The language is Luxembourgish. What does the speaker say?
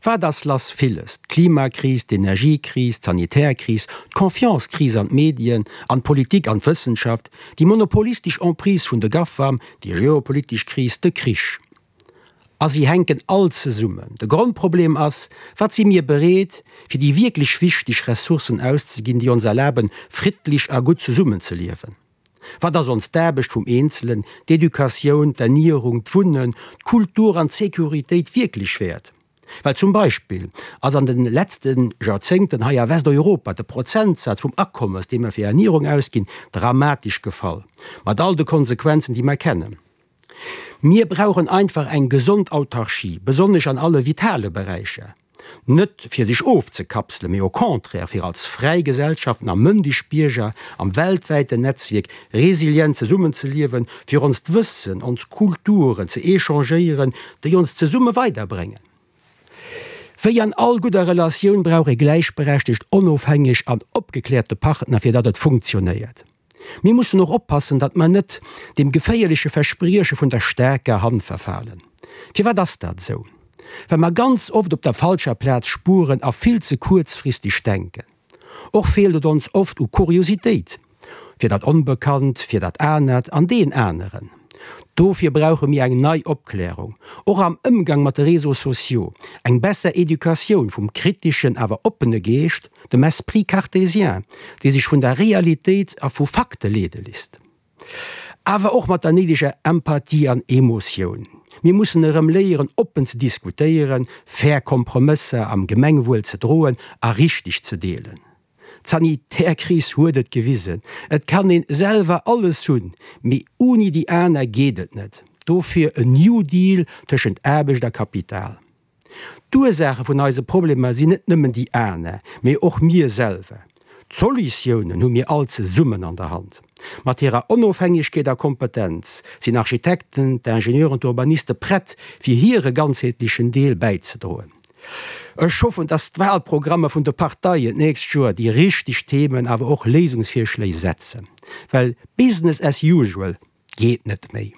Wat ass lass? Villes, d'Klimakris, d'Energiekris, d'Sanitärkris, d'Confiance-Kris an d'Medien, an d'Politik, an d'Wëssenschaft, déi monopolistesch Emprise vun de GAFAM, déi geopolitesch Kris, de Krich. A si hänken all zesummen. De Grondproblem ass, Wat si mir bereet, fir déi wierklech wichteg Ressourcen auszeginn, déi ons erlaben, friddlech a gutt zesummenzeliewen? Wat ass ons d'Aarbecht vum Eenzelen, d'Educatioun, d'Ernierung, d'Wunnen, d'Kultur an d'Securitéit wierklech wäert? Well zum Beispill ass an de letzte Joerzéngten hei a Westeuropa de Prozentsaz vum Akommes, dee mer fir Ernierung ausginn, dramatesch gefall, mat all de Konsequenzen, déi mer kennen. Mir brauchen einfach eng gesond Autarchie, besonnesch an alle vitale Beräicher. Net fir sech ofzekapselen, mee au contraire fir als fräi Gesellschaften a mëndeg Bierger am weltwäiten Netzwierk resilient zesummenzeliewen, fir onst Wëssen, ons Kulturen ze échangéieren, déi ons zesumme weiderbréngen. Wéi an all gudder Relatioun brauch ee gläichberechtegt, onofhängeg an opgekläerte Partner, fir datt et funktionéiert. Mir mussen och oppassen, datt mer net dem geféierleche Versprieche vun der staarker Hand verfalen. Firwat ass dat esou? Well mer ganz oft op der falscher Plaz spueren a vill ze kuerzfristeg denken. Och feelt et ons oft u Kuriositéit fir dat Onbekannt, fir dat Anert an deen Aneren. Dofir brauche mir eng nei Opklärung, och am Ëmgang mat de Réseaux sociaux, eng besser Educatioun vum kriteschen awer oppene Geescht, dem Esprit cartésien, dee sech vun der Realitéit a vu Fakte leede lisst. Awer och mat der néideger Empathie an Emotioun. Mir mussen erëm léieren, oppen ze diskutéieren, fair Kompromësser am Gemengwuel ze droen a richteg ze deelen. D'Sanitärkris huet et gewisen, et kann een selwer alles hunn, mee uni déi aner geet et net. Dofir en New Deal tëschent Aarbecht a Kapital. D'Ursaache vun eise Problemer sinn net nëmmen déi aner, mee och mir selwer. D'Solutiounen hu mir all zesummen an der Hand. Mat hirer Onofhängegkeet a Kompetenz sinn Architekten, d'Ingenieuren, d'Urbaniste prett, fir hire ganzheetlechen Deel bäizedroen. Ech hoffen, dass d'Wahlprogrammer vun de Parteien d'nächst Joer déi richteg Themen, awer och Léisungsvirschléi setzen, well Business as usual geet net méi.